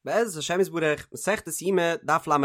בעזרת השם יתברך, מסכת יומא, דף ל"ה,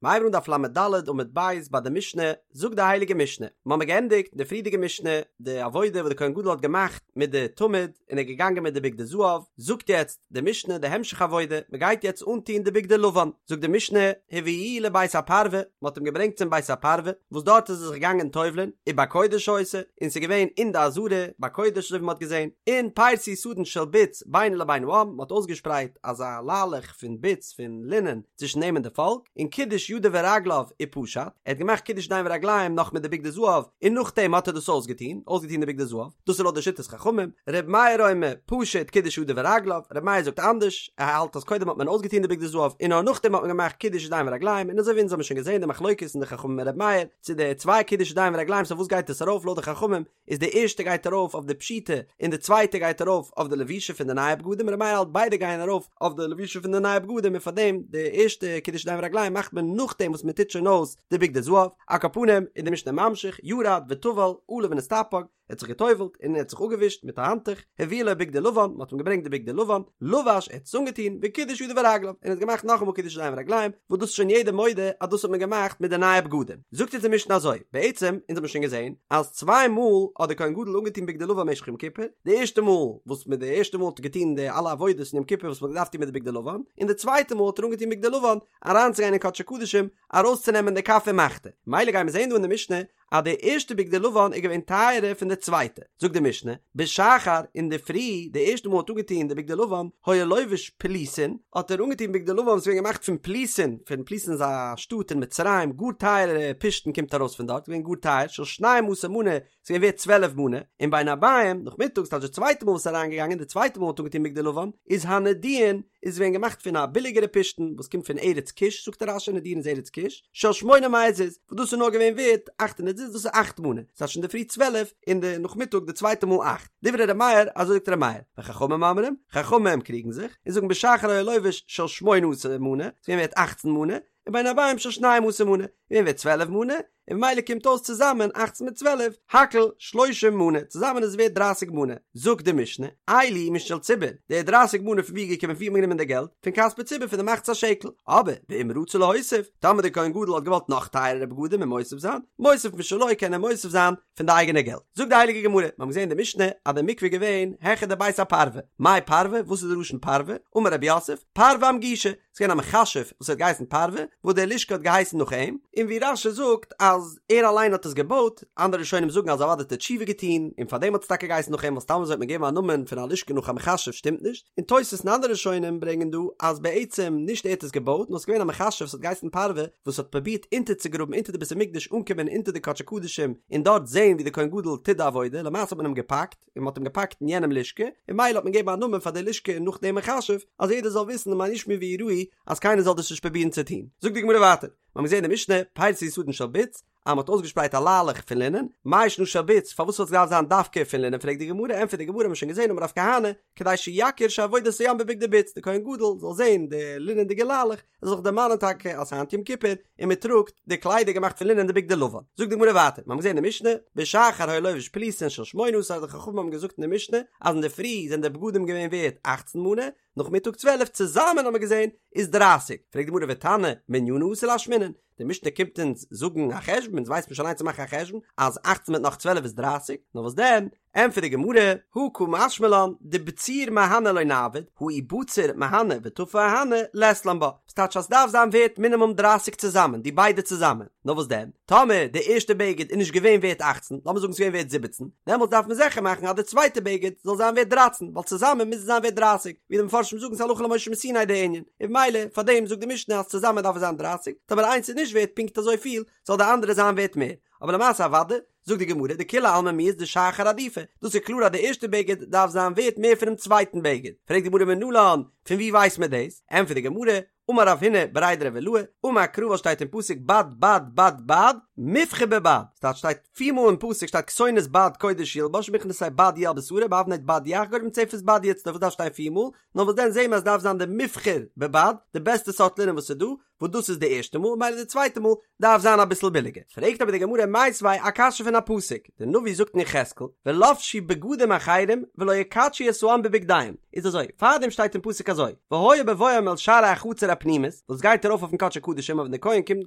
מ'הייבט אן דף ל"ד עמוד ב' ביי די משנה, זאגט די הייליגע משנה, מ'האמיר געענדיגט די פריערדיגע משנה, די עבודה וואס די כהן גדול האט געמאכט מיט די תמיד, און ער איז געגאנגען מיט די בגדי זהב, זאגט יעצט די משנה די המשך עבודה, מ'גייט יעצט אנטון די בגדי לבן, זאגט די משנה, הביאוהו לבית הפרווה, מ'האט אים געברענגט צום בית הפרווה, וואס דארט איז ער זיך געגאנגען טובל'ען, ובקודש היתה, און ס'איז געווען אין די עזרה, בקודש אזוי ווי מ'האט געזען, און פרסו סדין של בוץ בינו לבין העם, מ'האט אויסגעשפרייט אזא ליילעך פון בוץ פון לינען צווישן אים און די פאלק, און קידש ידיו ורגליו ופשט, ער האט געמאכט קידוש ידיים ורגליים נאך מיט די בגדי זהב, און נאכדעם האט ער דאס אויסגעטון, אויסגעטון די בגדי זהב, דאס איז לויט די שיטת חכמים, ר' מאיר אומר, פשט קידש ידיו ורגליו, ר' מאיר זאגט אנדערש, ער האלט אז קודם האט מען אויסגעטון די בגדי זהב און נאר נאכדעם האט מען געמאכט קידוש ידיים ורגליים, און אזוי ווי אונז האבן שוין געזען די מחלוקת אין די חכמים און ר' מאיר, צו די צוויי קידוש ידיים ורגליים סאו וואס גייט עס ארויף לויט די חכמים, איז די ערשטע גייט ארויף אויף די פשיטה און די צווייטע גייט ארויף אויף די לבישה פון די נייע בגדים ר' מאיר האלט ביידע גייען ארויף אויף די לבישה פון די נייע בגדים און פארדעם די ערשטע קידוש ידיים ורגליים מאכט מען נאכדעם וואס מען טוט שוין אויס די בגדי זהב על כל פנים איז די משנה ממשיך ירד וטבל עלה ונסתפג ער האט זיך געטובלט און ער האט זיך אפגעווישט מיט א האנטוך הביאו לו בגדי לבן מען האט אים געברענגט די בגדי לבן לבש ער האט עס אנגעטון וקידש ידיו ורגליו און ער האט געמאכט נאכאמאל קידוש ידיים ורגליים וואס דאס איז שוין יעדער מודה אז דאס האט מען געמאכט מיט די נייע בגדים. זאגט אונז די משנה אזוי, בעצם, אונז האבן שוין געזען, אז צוויי מאל האט דער כהן גדול אנגעטון בגדי לבן במשך יום כיפור, די ערשטע מאל וואס מיט די ערשטע מאל האט ער געטון די אלע עבודות אין יום כיפור וואס מען האט געדארפט טון מיט די בגדי לבן, און די צווייטע מאל האט ער אנגעטון בגדי לבן אריינצוגיין אין קדשי קדשים ארויסצונעמען די כף ומחתה. מילא גיימיר זען דא אין די משנה אז די ערשטע בגדי לבן איז געווען טייערער פון די צווייטע, זאגט די משנה, בשחר אינדערפרי, די ערשטע מאל האט אנגעטון די בגדי לבן, היה לובש פלוסין, האט ער אנגעטון בגדי לבן וואס איז געווען געמאכט פון פלוסין, פון פלוסין איז א שטאט אין מצרים, גאר טייערע פשתן קומט ארויס פון דארט, געווען גאר טייער, של שנים עשר מנה, ס'איז געווען ווערט צוועלף מנה, און בין הערבים, נאכמיטאג, ס'טייטש די צווייטע מאל וואס איז אריינגעגאנגען, די צווייטע מאל האט אנגעטון בגדי לבן, איז הנדוין, איז געווען געמאכט פון א ביליגערע פשתן וואס קומט פון ארץ כוש, זאגט רש"י נדויין איז ארץ כוש, של שמונה מאות זוז, וואס דאס איז נאר געווען ווערט אכט הונדערט זוז, דאס איז אכט מנה, ס'טייטש אינדערפרי צוועלף און די נאכמיטאג די צווייטע מאל אכט, דברי ר' מאיר, אזוי זאגט ר' מאיר, וחכמים אומרים, חכמים קריגן זיך, און זאגן בשחר היה לובש של שמונה עשר מנה, ס'איז געווען ווערט אכצן מנה, ובין הערבים של שנים עשר מנה, געווען ווערט צוועלף מנה, און ממילא קומט אויס צוזאמען אכצן מיט צוועלף, הכל שלושים מנה, צוזאמען איז עס ווערט דרייסיג מנה. זאגט די משנה, אלו משל ציבור, די דרייסיג מנה פון ווי איז געקומען פון ווי האט מען גענומען די געלט? פון כספי ציבור פון די מחצית השקל. אבער ואם רצה להוסיף, טאמער דער כהן גדול האט געוואלט נאך טייערערע בגדים און מוסיף זיין, מוסיף משלו קען ער מוסיף זיין פון די אייגענע געלט. זאגט די הייליגע גמרא, מיר האבן געזען אין די משנה אז די מקווה איז געווען העכער די בית הפרווה, מאי פרווה, וואס איז די לשון פרווה? אמר רב יוסף, פרווה אמגושא, ס'איז געווען א מכשף וואס האט געהייסן פרווה, וואס די לשכה האט געהייסן נאך אים, און ווי רש"י זאגט אז ער אליין האט עס געבויט, אנדערע ראשונים זאגן אז אוודאי האט ער תשובה געטון, און פארדעם האט עס טאקע געהייסן נאך אים, ווייל סתם אזוי האט מען געגעבן א נאמען פון א לשכה נאך א מכשף שטימט נישט, און תוס' און אנדערע ראשונים ברענגען דא אז בעצם נישט ער האט עס געבויט, נאר ס'איז געווען א מכשף וואס האט געהייסן פרווה וואס האט פרובירט אונטערצוגראבן אונטער די בית המקדש אנקומען אונטער די קדשי קדשים און דארט זען ווי די כהן גדול טוט די עבודה, למעשה האט מען אים געפאקט. און מ'האט אים געפאקט אין יענעם לשכה, און מילא האט מען געגעבן א נאמען פאר די לשכה נאך דעם מכשף, אז יעדער זאל וויסן למען ישמעו ויראו אז קיינער זאל דאס נישט פרובירן צו טון. זאגט די גמרא ווייטער, מיר האבן געזען אין די משנה, פרסו סדין של בוץ, אז מ'האט אויסגעשפרייט א ליילעך פון לינען, מאי שנא של בוץ, פארוואס האט עס געדארפט זיין דווקא פון לינען פרעגט די גמרא, ענטפערט די גמרא, מ'האט שוין געזען אמר רב כהנא, כדי שיכיר שעבודת הים בבגדי בוץ, די כהן גדול זאל זען די לינענדיגע ליילעך, ער זאל זיך דערמאנען טאקע אז היינט יום כיפור און מען טראגט די קליידער געמאכט פון לינען די בגדי לבן. זאגט די גמרא ווייטער, מיר האבן געזען אין די משנה, בשחר היה לובש פלוסין של שמונה עשר די חכמים האבן געזאגט אין די משנה אז אינדערפרי זענען די בגדים געווען ווערט אכצן מנה, נאכמיטאג צוועלף, צוזאמען האבן מיר געזען איז דרייסיג, פרעגט די גמרא ותנא מנינא אתא לאשמועינן, די משנה קומט אונז זאגן א חשבון, אונז ווייסט מען שוין אליין צו מאכן א חשבון אז אכצן מיט נאך צוועלף איז דרייסיג, נאר וואס דען, ענטפערט די גמרא, הא קא משמע לן, דבציר מהני לא נעביד, הא אי בציר מהני וטפי אהני, לית לן בה. ס'טייטש אז ס'דארף זיין ווערט מינימום דרייסיג צוזאמען, די ביידע צוזאמען. נאר וואס דען, טאמער די ערשטע בגד איז נישט געווען ווערט אכצן, לאמיר זאגן ס'איז געווען ווערט זיבעצן, דעמאלטס דארף מען זיכער מאכן אז די צווייטע בגד זאל זיין ווערט דרייצן, ווייל צוזאמען מוז עס זיין ווערט דרייסיג, ווי די מפרשים זאגן ס'הלכה למשה מסיני די ענין, און במילא פאר דעם זאגט די משנה אז צוזאמען דארף עס זיין דרייסיג, טאמער איינס איז נישט ווערט פונקט אזויפיל, זאל די אנדערע זיין ווערט מער. אבער למעשה אוודאי, זאגט די גמרא, דכולי עלמא מיהת דשחר עדיפא, דאס איז קלאר אז די ערשטע בגד דארף זיין ווערט מער פונעם צווייטן בגד, פרעגט די גמרא מנלן, פון וואו ווייסט מען דאס? ענטפערט די גמרא, אמר רב הונא בריה דרב עילאי, אמר קרא וואס שטייט אין פסוק בד בד בד בד, מובחר בבד, ס'טייטש שטייט פיר מאל אין פסוק שטייט כתונת בד קודש ילבש מכנסי בד יהיה על בשרו באבנט בד יחגור ובמצנפת בד יצלוף וואס דארף שטיין פיר מאל? נאר וואס דען זעהן מיר אז ס'דארף זיין די מובחר בבד, די בעסטע סארט לינען וואס איז דא, וואס דאס איז די ערשטע מאל, מילא די צווייטע מאל דארף זיין אביסל ביליגער. פרעגט אבער די גמרא מיתיבי א קשיא פון א. פון א פסוק, די נביא זאגט אין יחזקאל, ולבשו בגדים אחרים ולא יקדשו את העם בבגדיהם, איז אזוי, פארדעם שטייט אין פסוק אזוי, והיה בבואם אל שערי החצר הפנימית, וואס גייט ארויף אויפן קדשי קדשים, אויב ווען די כהן קומט אין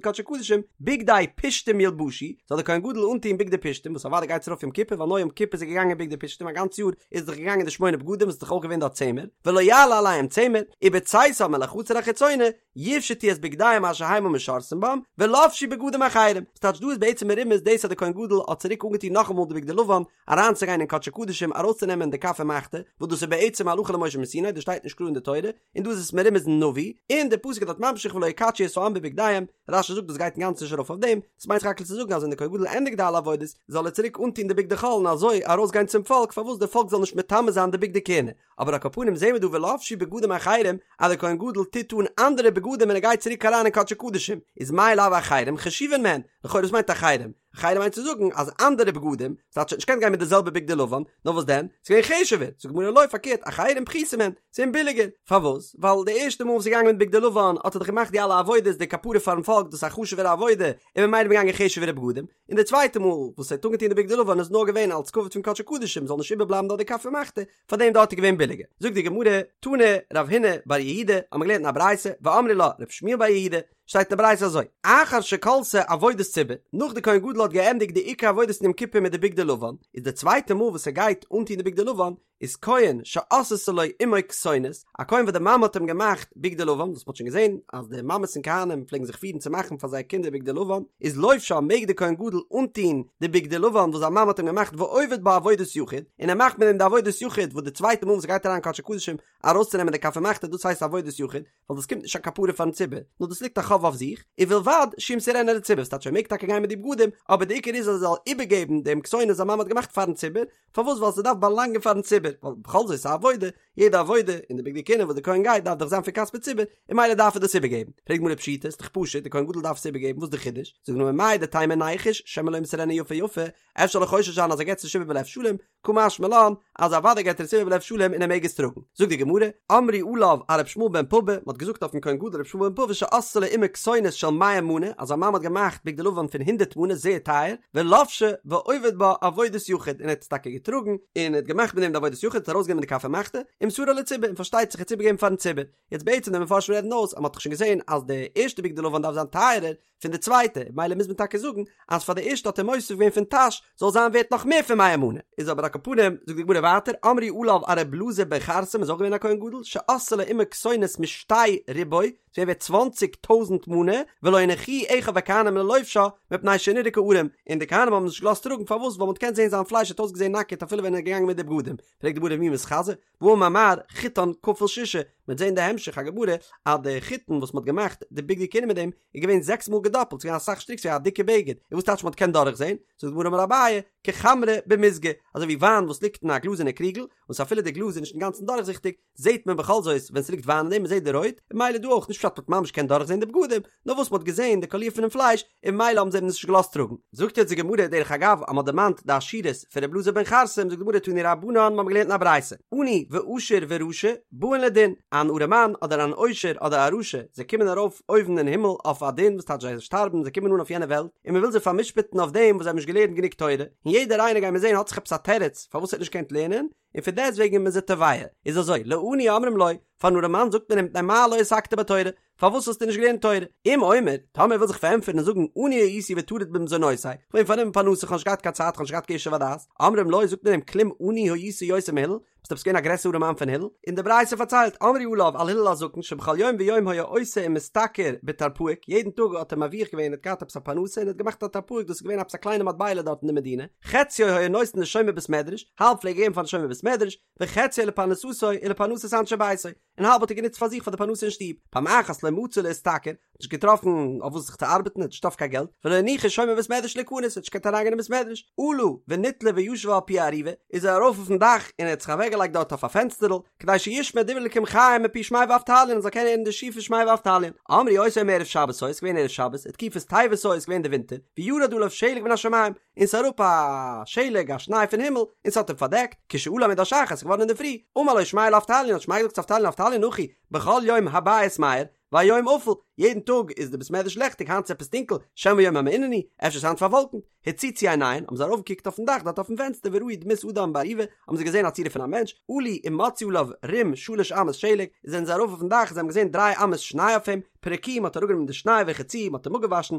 קדשי קדשים, בגדי פשתים ילבשו, זאל דער כהן גדול אנטוהן בגדי פשתים, וואס אוודאי גייט עס ארויף יום כיפור, ווייל נאר יום כיפור איז ער געגאנגען בגדי פשתים, א גאנץ יאר איז ער דאך געגאנגען די שמונה בגדים וואס איז דאך אויך געווען דארט צמר, ולא יעלה עליהם צמר, ובצאתם אל החצר החיצונה, יפשטו את בגדיהם אשר המה משרתים בם, ולבשו בגדים אחרים. ס'טייטש דא איז בעצם מרומז דאס אז דער כהן גדול האט צוריק אנגעטון נאכאמאל די בגדי לבן, אריינצוגיין אין קדשי קדשים ארויסצונעמען די כף ומחתה, וואס דאס איז בעצם הלכה למשה מסיני, דאס שטייט נישט קלאר אין די תורה, און דא איז עס מרומז אין נביא, און דער פסוק איז דארט ממשיך ולא יקדשו את העם בבגדיהם, רש"י זאגט דאס גייט אינגאנצן נישט ארויף אויף דעם, דאס מיינט סך הכל צו זאגן אז ווען דער כהן גדול ענדיגט די אלע עבודות, זאל ער צוריק אנטון די בגדי חול און אזוי ארויסגיין צום פאלק פארוואס די פאלק זאל נישט מטמא זיין די בגדי כהונה, אבער על כל פנים זעהן מיר דא ולבשו בגדים אחרים אז דער כהן גדול טוט אן אנדערע בגדים ווען ער גייט צוריק אריין אין קדשי קדשים, איז מאי לאו אחרים חשובין מהן, לכאורה וואס מיינט אחרים? אחרים מיינט צו זאגן אז אנדערע בגדים, ס'טייטש ער האט נישט געקענט גיין מיט די זעלבע בגדי לבן, נאר וואס דען? ס'איז געווען חשוב'ער, זאגט די גמרא לא פארקערט אחרים פחותין מהן, ס'איז געווען ביליגער, פארוואס? ווייל די ערשטע מאל וואס איז געגאנגען מיט בגדי לבן האט ער דאך געמאכט די אלע עבודות די כפרה פארן פאלק דאס איז א חשוב'ערע עבודה, און ממילא איז מען געגאנגען חשוב'ערע בגדים, און די צווייטע מאל וואס ער האט אנגעטון די בגדי לבן איז נאר געווען אלס כבוד פון קדשי קדשים זאל נישט איבערבלייבן דארט די כף ומחתה, פאר דעם דארט איז געווען ביליגער. זאגט די גמרא, תני רב הונא בר יהודה, האבן מיר געלערנט אין א ברייתא, ואמרי לה רב שמואל בר יהודה, שטייט אין די ברייתא אזוי, אחר שכלתה עבודת ציבור, נאך די כהן גדול האט געענדיגט די עיקר עבודות אין יום כיפור מיט די בגדי לבן, איז די צווייטע מאל וואס ער גייט אנטון די בגדי לבן, איז כהן שעשתה לו אמו כתונת, א כהן וואס די מאמע האט אים געמאכט בגדי לבן, וואס מ'האט שוין געזען אז די מאמעס פון כהנים פלעגן זיך פירן צו מאכן פאר זייער קינדער בגדי לבן, איז לובשה מעג די כהן גדול אנטון די בגדי לבן וואס זיין מאמע האט אים געמאכט ועובד בה עבודת יחיד, און ער מאכט מיט דעם די עבודת יחיד וואס די צווייטע מאל וואס ער גייט אריין קדשי קדשים ארויסצונעמען די כף ומחתה דאס הייסט עבודת יחיד, ווייל דאס קומט נישט א כפרה פארן ציבור, נאר דאס ליגט א חוב אויף זיך, ובלבד שימסרנה לציבור, ס'טייטש ער מעג טאקע גיין מיט די בגדים, אבער די עיקר איז אז ער זאל איבערגעבן דעם כתונת וואס זיין מאמע האט געמאכט פארן ציבור, פארוואס ווייל ס'דארף באלאנגען פארן ציבור, ווייל בכל זאת ס'איז א עבודה, יעדע עבודה אין די בגדי כהונה וואס די כהן גייט דארף דאך זיין פון כספי ציבור, און ממילא דארף ער דאס איבערגעבן. פרעגט די גמרא פשיטא, ס'איז דאך פשוט, די כהן גדול דארף עס איבערגעבן, וואס איז די חידוש? זאגט די גמרא מהו דתימא ניחוש שמא לא ימסרנה יפה יפה, אפשר זאל איך חושש זיין אז ער געבט עס נישט איבער בלב שלם, קא משמע לן, אז אוודאי געבט ער עס איבער בלב שלם און ער מעג עס טראגן. זאגט די גמרא, אמרו עליו על ר' ישמעאל בן פפא, מ'האט געזאגט אויפן כהן גדול ר' ישמעאל בן פפא שעשתה לו אמו כתונת של מאה מנה, אז זיין מאמע האט געמאכט בגדי לבן פון הונדערט מנה, זייער טייער, ולבשה ועובד בה עבודת יחיד, און ער האט עס טאקע געטראגן, און ער האט געמאכט מיט דעם די עבודת יחיד, האט ארויסגענומען די כף ומחתה, ומסרה לציבור, און פארשטייט זיך ער האט עס איבערגעגעבן פארן ציבור. יעצט בעצם די מפרשים רעדן אויס אז מ'האט דאך שוין געזען אז די ערשטע בגדי לבן דארף זיין טייערער, פון די צווייטע, מילא מוז מען טאקע זאגן אז פאר די ערשטע האט ער מוסיף געווען פון טאש זאל זיין ווערט נאך מער פון מאה מנה, איז אבער על כל פנים, זאגט די גמרא ווייטער, אמרו עליו על ר' אלעזר בן חרסום איז אויך געווען א כהן גדול, שעשתה לו אמו כתונת משתי ריבוא, ס'איז געווען ווערט צוואנציג טויזנט מנה, ולא הניחוהו אחיו הכהנים ללובשה, מפני שנראה כערום, און די כהנים האבן נישט געלאזט טראגן, פארוואס? ווייל מ'האט געקענט זען זיין פלייש האט אויסגעזען נאקעט אפילו ווען ער איז געגאנגען מיט די בגדים, פרעגט די גמרא ומי מתחזי, והאמר מר חוטן כפול ששה, מ'וועט זען די המשך הגמרא אז די חוטין וואס מ'האט געמאכט די בגדי כהונה מיט דעם איז געווען זעקס מאל געדאפלט, ס'איז געווען אסאך שטריק, ס'איז געווען א דיקע בגד, און וואס טייטש מ'האט געקענט דורכזען? זאגט די גמרא אמר אביי, כחמרא במיזגא, אזוי ווי וויין וואס ליגט אין א גלאזערנע קריגל, וואס אפילו די גלאז איז נישט אינגאנצן דורכזיכטיג, זעט מען בכל זאת ווען ס'ליגט וויין אין דעם, מ'זעט די רויט, און ממילא דא אויך, נישט פשט מ'האט ממש געקענט דורכזען די בגדים, נאר וואס מ'האט געזען די קאליר פונעם פלייש, און ממילא האבן זיי אים נישט געלאזט טראגן. זאגט יעצט די גמרא, דרך אגב, אז מ'האט דערמאנט די עשירות פון ר' אלעזר בן חרסום, זאגט די גמרא תנו רבנן, מ'האט געלערנט אין א ברייתא, עני ועשיר ורשע באין לדין, אן ארעמאן אדער אן עושר אדער א רשע, זיי קומען ארויף אויבן אין הימל אויף א דין, וואס טייטש זיי שטארבן, זיי קומען אן אויף יענע וועלט, און מ'וויל זיי פאר'משפט'ן אויף דעם וואס זיי האבן נישט געלערנט גענוג תורה, און יעדער איינער גיימיר זען האט זיך עפעס א תירוץ פארוואס ער האט נישט געקענט לערנען, און פון דעסט וועגן איז מען זיי תובע, איז אזוי, לעני אומרים לו, פארן ארעמאן זאגט מען אים מפני מה לא עסקת בתורה, פארוואס האסטו נישט געלערנט תורה? אם אומר, טאמער ער וויל זיך פארענטפערן און זאגן עני הייתי וטרוד במזונותי, כ'בין פארנומען פרנסה, כ'האב נישט געהאט קיין צייט, כ'האב נישט געהאט קיין ישוב הדעת, אומרים לו, זאגט מען אים כלום עני היית יותר מהלל, ביסט עפעס געווען א גרעסערע ארעמאן פון הלל? און די ברייתא פארציילט, אמרו עליו על הלל הזקן שבכל יום ויום היה עושה ומשתכר בטרפעיק, יעדן טאג האט ער מרוויח געווען, ער האט געהאט עפעס א פרנסה און ער האט געמאכט א טרפעיק, דאס איז געווען עפעס א קליינע מטבע'לע דארט אין די מדינה, חציו היה נותן לשומר בית מדרש, האלב פלעג ער געבן פארן שומר בית מדרש, וחציו לפרנסתו ולפרנסת אנשי ביתו, און האלב האט ער גענוצט פאר זיך פאר די פרנסה אין שטוב, פעם אחת לא מצא להשתכר, האט נישט געטראפן אויף וואס זיך צו ארבעטן, האט נישט געטראפן קיין געלט, ולא הניחו שומר בית מדרש להיכנס, האט נישט געקענט אריינגיין אין בית מדרש, עלה ונתלה וישב על פי ארובה, איז ער ארויף אויפן דאך און ער האט זיך אוועקגעלייגט דארט אויף א פענסטערל, כדי שישמע דברי אלקים חיים מפי שמעיה ואבטליון, ער זאל קענען הערן די שיעור פון שמעיה ואבטליון. אמרו אותו היום ערב שבת היה, ס'איז געווען ערב שבת, ותקופת טבת היה, ס'איז געווען די ווינטער, וירד עליו שלג מן השמים, און ס'איז אראפ א שלג א שניי פון הימל און ס'האט אים פארדעקט, כשעלה עמוד השחר ס'איז געווארן אינדערפרי, אמר לו שמעיה לאבטליון האט שמעיה געזאגט צו אבטליון אבטליון אחי, בכל יום הבית מאיר, והיום אפל, יעדן טאג איז די בית מדרש לעכטיג היינט איז עפעס טונקל, שמא יום המעונן הוא, אפשר איז היינט פארוואלקנט, הציצו עיניהן, האבן זיי ארויפגעקוקט אויפן דאך דארט אויפן פענסטער וראו דמות אדם בארובה, האבן זיי געזען א צורה פון א מענטש, עלו ומצאו עליו רום שלש אמות שלג, זענען זיי ארויף אויפן דאך, זיי האבן געזען דריי אמות שניי אויף אים, פרקוהו, מ'האט אראפגענומען די שניי ורחצוהו, מ'האט אים אפגעוואשן,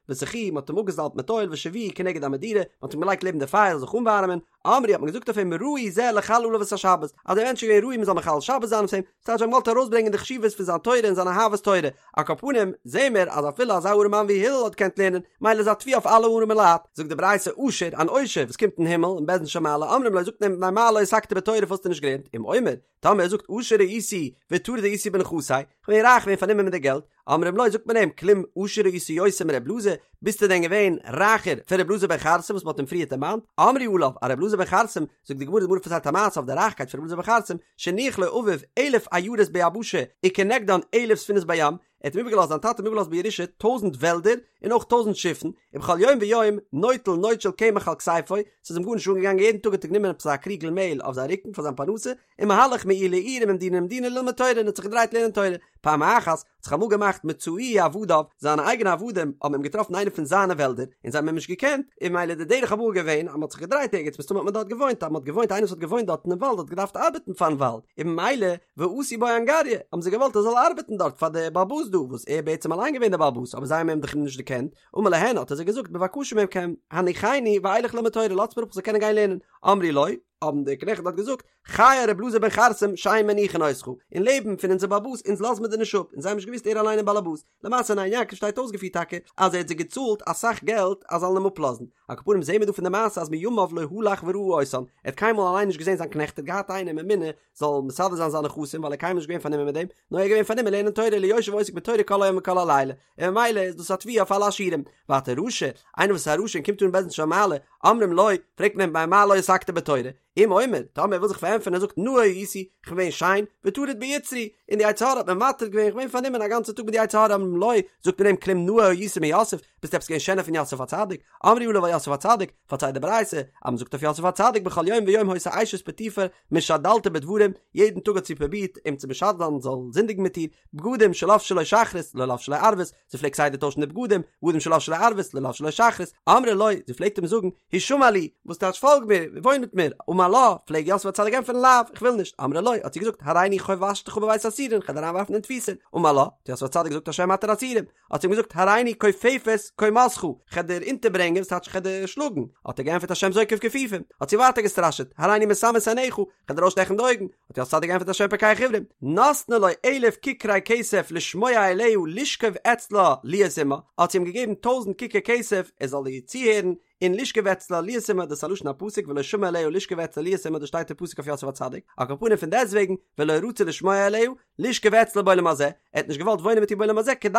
וסכוהו, מ'האט אים אפגעזאלבט מיט אויל, והושיבוהו כנגד המדורה, מ'האט אים געלייגט לעבן די פייער זאל זיך אנווארעמען, אמרו האט מען געזאגט אויף אים ראוי זה לחלל עליו את השבת, אז דער מענטש איז געווען ראוי מ'זאל מחלל שבת זיין אויף אים, ס'טייטש זיי האבן געוואלט ארויסברענגען די חשיבות פון זיין תורה און זיין אהבת תורה, על כל פנים זעהן מיר אז אפילו אזא ארעמאן ווי הלל האט געקענט לערנען, מילא איז א תביעה אויף אלע ארעמע לייט. זאגט די ברייתא עשיר, אן עושר וואס קומט אין הימל אין בית דין של מעלה אומרים לו זאגט מען אים מפני מה לא עסקת בתורה פארוואס האסטו נישט געלערנט, אם אומר, טאמער ער זאגט עשיר הייתי וטרוד הייתי בנכסי, כ'בין רייך געווען פארנומען מיט די געלט, אומרים לו זאגט מען אים כלום עשיר היית יותר מר' אלעזר, ביסטו דען געווען רייכער פון ר' אלעזר בן חרסום וואס מ'האט אים פריערט דערמאנט, אמרו עליו על ר' אלעזר בן חרסום, זאגט די גמרא די גמרא פארציילט א מעשה אויף די רייכקייט פון ר' אלעזר בן חרסום, שהניח לו אביו אלף עיירות ביבשה וכנגדן אלף ספינות בים, ער האט אים איבערגעלאזט זיין טאטע האט אים איבערגעלאזט בירושה טויזענט וועלדער און אויך טויזענט שיפן, ובכל יום ויום נוטל נוד של קמח על כתפו, ס'איז אים גארנישט אנגעגאנגען יעדן טאג האט ער גענומען עפעס א קריגל מעהל אויף זיין רוקן פאר זיין פרנסה, ומהלך מעיר לעיר וממדינה למדינה ללמוד תורה און האט זיך געדרייט לערנען תורה. פעם אחת האט זיך אמאל געמאכט מצאוהו עבדיו, זיינע אייגענע עבדים האבן אים געטראפן אין איינע פון זיינע וועלדער, און זיי האבן אים נישט געקענט, און ממילא די דרך אמאל געווען אז מען האט זיך געדרייט ערגעץ מסתמא האט מען דארט געוואוינט, אז מען האט געוואוינט איינער וואס האט געוואוינט דארט אינעם וואלד האט געדארפט ארבעטן פארן וואלד, און ממילא ועשו בו אנגריא, האבן זיי געוואלט ער זאל ארבעטן דארט פאר די בעל הבית דא, וואס ער בעצם אליין געווען דער בעל הבית, אבער זיי האבן אים דאך נישט דערקענט, אמר להן האט ער זיי געזאגט בבקשה מכם הניחני ואלך ללמוד תורה לאזטס מיר אפ איך זאל קענען גיין לערנען, אמרו לו, האבן די קנעכט דארט געזאגט, חיי רב אלעזר בן חרסום שאין מניחין אותך, אין לעבן פון אונזער בעל הבית אונז לאזן מיר דיר נישט אפ, אונז האבן נישט געוואוסט ער אליין איז בעל הבית, למעשה אין עין יעקב שטייט אויסגעפירט טאקע אז ער האט זיי געצאלט אסאך געלט אז זאלן אים אפלאזן, על כל פנים זעהן מיר דא פון די מעשה אז מימיו לא הלך וראה אותן, ער האט קיינמאל אליין נישט געזעהן זיין קנעכט ער האט געהאט איינעם ממונה זאל מסדר זיין זיינע נכסים ווייל ער קיינמאל נישט געווען פארנומען מיט דעם, נאר ער איז געווען פארנומען לערנען תורה אלא יושב ועוסק בתורה כל היום וכל הלילה, און ממילא איז דאס א תביעה אויף אלע עשירים. ווייטער רשע, איינער וואס איז א רשע און קומט אן אין בית דין של מעלה, אומרים לו, פרעגט מען אים מפני מה לא עסקת בתורה, אם אומר, טאמער ער וויל זיך פארענטפערן ער זאגט נאה הייתי, איך בין געווען שיין, וטרוד ביצרי, און די יצר הרע האט מיר מטריד געווען, איך בין געווען פארנומען א גאנצע טאג מיט די יצר הרע, אומרים לו, זאגט מען אים כלום נאה היית מיוסף, ביסט עפעס געווען שענער פון יוסף הצדיק, אמרו עליו על יוסף הצדיק, פארציילט די ברייתא, אז מען זאגט אויף יוסף הצדיק בכל יום ויום היתה אשת פוטיפר משדלתו בדברים, יעדן טאג האט זי פרובירט אים צו משדל זיין זאל זינדיגן מיט איר, בגדים שלבשה לו שחרית לא לבשה לו ערבית, זי פלעגט כסדר טוישן די בגדים, בגדים שלבשה לו ערבית לא לבשה לו שחרית, אמרה לו, זי פלעגט אים זאגן, השמע לי, וואס טייטש פאלג מיר, וואוין מיט מיר, אמר לה, פלעג יוסף הצדיק ענטפערן לאו, איך וויל נישט, אמרה לו, האט זי געזאגט, הריני חובשתך בבית האסורין, כ'וועל דיר אריינווארפן אין תפיסה, אמר לה, האט יוסף הצדיק געזאגט השם מתיר אסורים, האט זי אים געזאגט הריני כופפת קומתך, כ'על דיר אונטערברענגען, וואס טייטש כ'על דיר שלאגן, האט ער געענטפערט השם זוקף כפופים, האט זי ווייטער געסטראשעט, הריני מסמא את עיניך, כ'על דיר אויסשטעכן די אויגן, האט יוסף הצדיק געענטפערט השם פוקח עורים, נתנה לו אלף ככרי כסף לשמוע אליה לשכב אצלה להיות עמה, האט זי אים געגעבן טויזנט ככר כסף ער זאל איר צוהערן, און לשכב אצלה להיות עמה, דאס איז א לשון הפסוק ולא שמע אליה לשכב אצלה להיות עמה דאס שטייט אין פסוק אויף יוסף הצדיק, על כל פנים פון דעסטוועגן ולא רצה לשמוע אליה, לשכב אצלה בעולם הזה, ער האט נישט געוואלט וואוינען מיט איר בעולם הזה כדי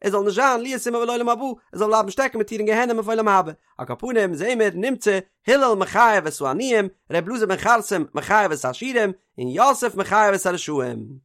ער זאל נישט זיין להיות עמה לעולם הבא, ער זאל בלייבן שטעקן מיט איר אין גיהנום אויף עולם הבא. על כל פנים זעהן מיר נמצא הלל מחייב את העניים, ר' אלעזר בן חרסום מחייב את העשירים, און יוסף מחייב את הרשעים.